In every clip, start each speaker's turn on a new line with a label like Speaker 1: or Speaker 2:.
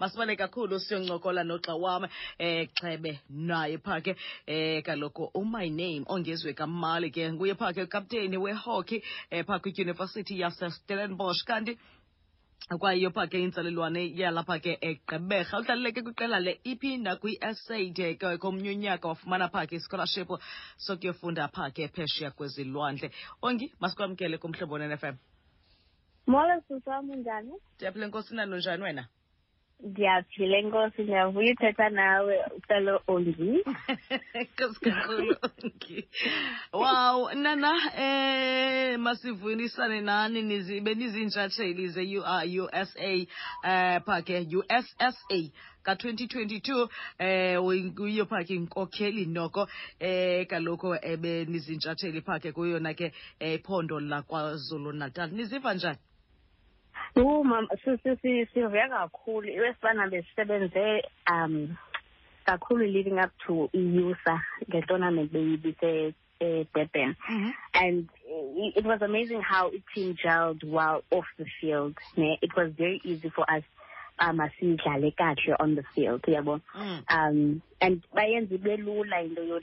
Speaker 1: Masibale kakhulu siyoncokola nogxa wam Xhebe naye pha ke kaloku uMy Name Ongezwe Kamali ke nguye pha ke kapteni wehockey pha kwidyunivesithi yaseStellenbosch, kanti kwayiyo pha ke intsalelwane yalapha ke eGqeberha. Udlalile ke kwiqela le-EP nakwi-SA de ke komnye unyaka wafumana pha ke ischolarship sokuyofunda pha ke phesheya kwezilwandle. Ongi, masikwamkele kuMhlobo Nen-FM.
Speaker 2: Molo sisi wam, unjani?
Speaker 1: Ndiyaphila enkosi, nalo njani wena?
Speaker 2: Ndiyaphila enkosi, ndiyavuya uthetha nawe ucelo Ongi.
Speaker 1: Enkosi kakhulu Ongi. Wow, nana masivunisane nani nizibe niziintshatsheli ze-USA pha ke USSA ka-2022, uyiyo pha ke inkokheli noko kaloku ebenizintshatsheli pha ke kuyona ke iphondo laKwaZulu Natal. Niziva njani?
Speaker 2: Mama, sivuya kakhulu. Iwesibana besisebenze kakhulu leading up to i-USA nge-tournament beyibise eDurban. And it was amazing how it team gelled while off the field. Ne? It was very easy for us asidlale kahle on the field, yabo. And bayenza ibe lula into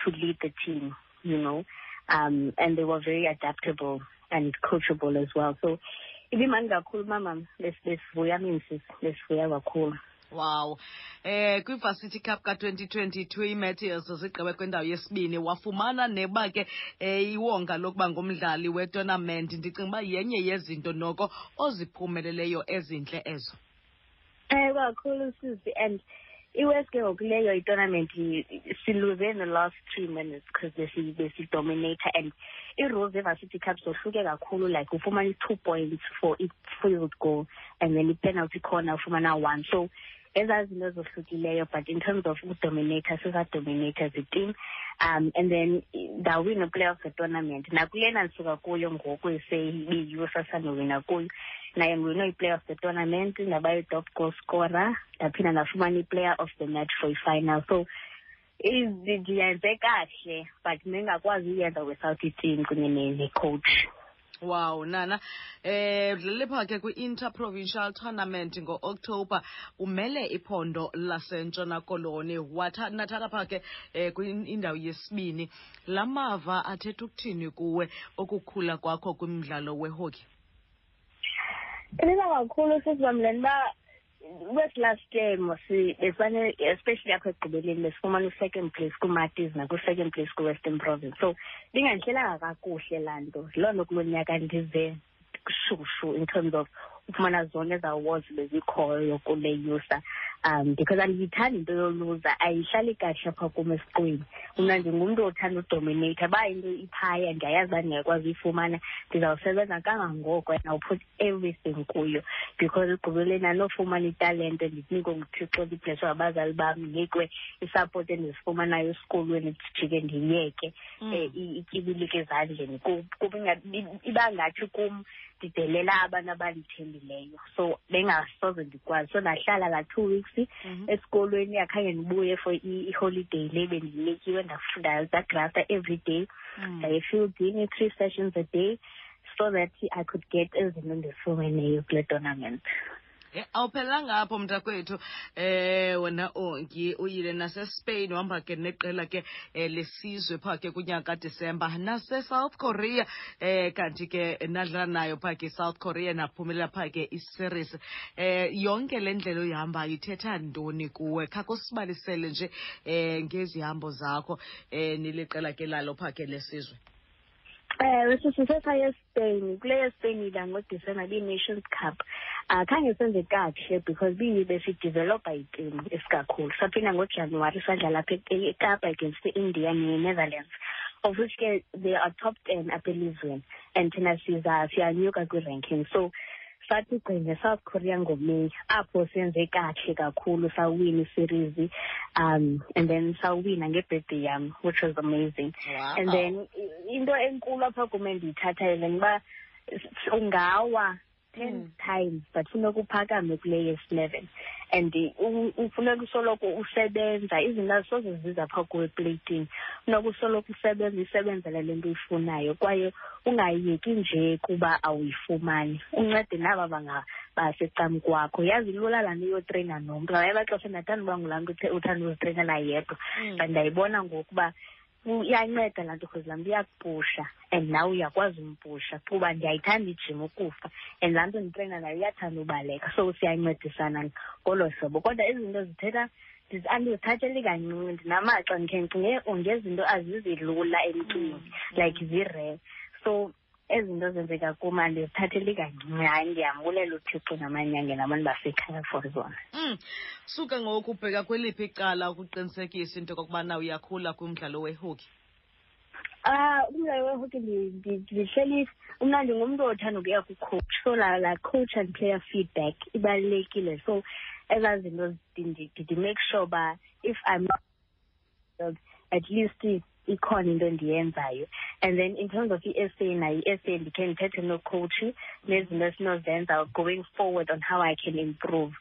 Speaker 2: to lead the team. And they were very adaptable and coachable as well. So ibimandi kakhulu mama, besivuya minsi, besivuya kakhulu.
Speaker 1: Wow. Kwi-Varsity Cup ka-2022 iMeteors zigqibe kwindawo yesibini, wafumana neba ke iwonga lokuba ngumdlali wetournament. Ndicinga uba yenye yezinto noko oziphumeleleyo ezintle ezo.
Speaker 2: Kakhulu sisi, and iwes ke ngoku leyo itournament siluze in the last 3 minutes because besidominate, and i-rules ze-Varsity Cup zohluke kakhulu, like ufumana i-2 points for i-field goal and then i-penalty corner ufumana 1, so ezaa zinto zohlukileyo. But in terms of udominate, sisadominate as a team, and then ndawina player of the tournament nakulena ndisuka kuyo ngoku seyibiyiyo sasandowina kuyo, naye ngiwine i-player of the tournament, ndaba yi-top goal scorer, ndaphinda ndafumana i-player of the match for i-final. So ndiyenze kahle, but ndingakwazi uyenza without i-team kunye ne-coach.
Speaker 1: Wow, nana. Udlalile pha ke kwi-Interprovincial Tournament ngo-October, umele iphondo laseNtshona Koloni. Nathatha pha ke kwindawo yesibini. Lamava athetha ukuthini kuwe okukhula kwakho kwimidlalo wehockey?
Speaker 2: Ibiza kakhulu sisi uba wes last year mos besifane, especially apha ekugqibeleni, besifumana u-second place kuMatis nakwi-second place kwi-Western Province, so bingandihlelanga kakuhle laa nto. Loo nto kulo nyaka ndize shushu in terms of ufumana zonke ezi awards bezikhoyo kule USA, because andiyithandi into yoluza, ayihlali kahle apha kum esiqwini. Mna ndingumntu othanda udominate. Uba into iphaya ndiyayazi uba ndingakwazi uyifumana, ndizawusebenza kangangoko and I'll put everything kuyo, because ekugqibeleni andinofumana italente ndinikwe nguThixo, ndiblesswe ngabazali bam, ndinikwe isupport endizifumanayo esikolweni, ndijike ndiyeke ityibilike ezandleni. Kuba iba ngathi kum ndidelela abantu abandithembileyo, so bengasoze ndikwazi. So ndahlala laa 2 weeks esikolweni, akhange ndibuye for i-holiday le bendinikiwe. Ndagrafta every day, ndaye efieldini 3 sessions a day so that I could get ezinto ndizifumeneyo kule tournament.
Speaker 1: Awuphelelanga apho mntakwethu, wena Ongi, uyile naseSpain, uhamba ke neqela ke lesizwe pha ke kunyaka kaDisemba, nase-South Korea, kanti ke nadlala nayo pha ke South Korea, naphumelela pha ke iseries. Yonke le ndlela oyihambayo ithetha ntoni kuwe? Khake usibalisele nje ngezihambo zakho niliqela ke lalo pha ke lesizwe.
Speaker 2: Ewe, sisise saya eSpain. Kule yeSpain ila ngoDisemba ibiyi-Nations Cup. Khange senze kakuhle because besidevelopa itimu isikakhulu. Saphinda ngoJanuwari sadlala apha eKapa against i-India ne-Netherlands, of which ke they are top 10 apha elizweni and thina siza siyanyuka kwi-ranking. So sathi gqi nge-South Korea ngoMeyi, apho senze kahle kakhulu, sawina iseries, and then sawina ngebirthday yam, which was amazing. And then into enkulu apha kum endiyithathayo le uba ungawa 10 times but funeka uphakame kule yesi-11. And ufuneka usoloko usebenza, izinto azisoze ziza phaa kuwe epleyitini. Funeka usoloko usebenza, uyisebenzele le nto uyifunayo, kwaye ungayeki nje kuba awuyifumani. Uncede naba basecam kwakho. Yazi lula laa nto uyotreyina nomntu. Ngamanye amaxesha ndiyathanda uba ngulaa mntu uthanda uzitreyinela yedwa, but ndiyayibona ngoku uba iyanceda laa nto, because laa mntu iyakupusha and nawe uyakwazi umpusha, kuba ndiyayithanda ijim ukufa, and laa mntu nditreyina naye uyathanda ubaleka, so siyancedisana ngolo hlobo. Kodwa izinto zithetha andizithatheli kancinci, ndinamaxa ndikhe ndicinge ngezinto azizilula emntwini, like zirare. So ezi zinto zenzeka kum andizithatheli kancinci. Hayi, ndiyambulela uThixo namanyange nabantu basekhaya for zona.
Speaker 1: Suka ngoku ubheka kweliphi icala ukuqinisekisa into yokokubana uyakhula kumdlalo wehockey?
Speaker 2: Umdlalo wehockey ndihleli mna ndingumntu othanda ukuya ku-coach, so la coach and player feedback ibalulekile. So ezaa zinto ndi-make sure uba if I'm at least ikhona into endiyenzayo. And then in terms of i-S A, nayo i-S A ndikhe ndithethe nocoach nezinto esinozenza going forward on how I can improve.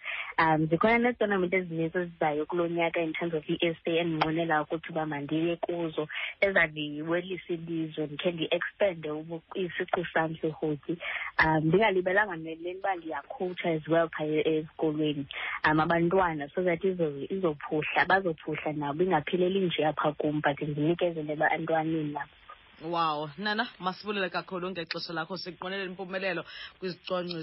Speaker 2: Zikhona neetournament ezininzi ezizayo kulo nyaka in terms of i-S A endinqwenela ukuthi uba mandiye kuzo, ezandiwelisa ilizwe, ndikhe ndi-expande isiqu sam sehockey. Ndingalibelanga nele uba ndiyakhowutsha as well phaya esikolweni, abantwana, so that izophuhla, bazophuhla nabo, ingapheleli nje apha kum, but ndinikezele ebantwaneni nabo.
Speaker 1: Wow, Nana, masibulele kakhulu ngexesha lakho, sikunqwenela impumelelo kwizicwangciso.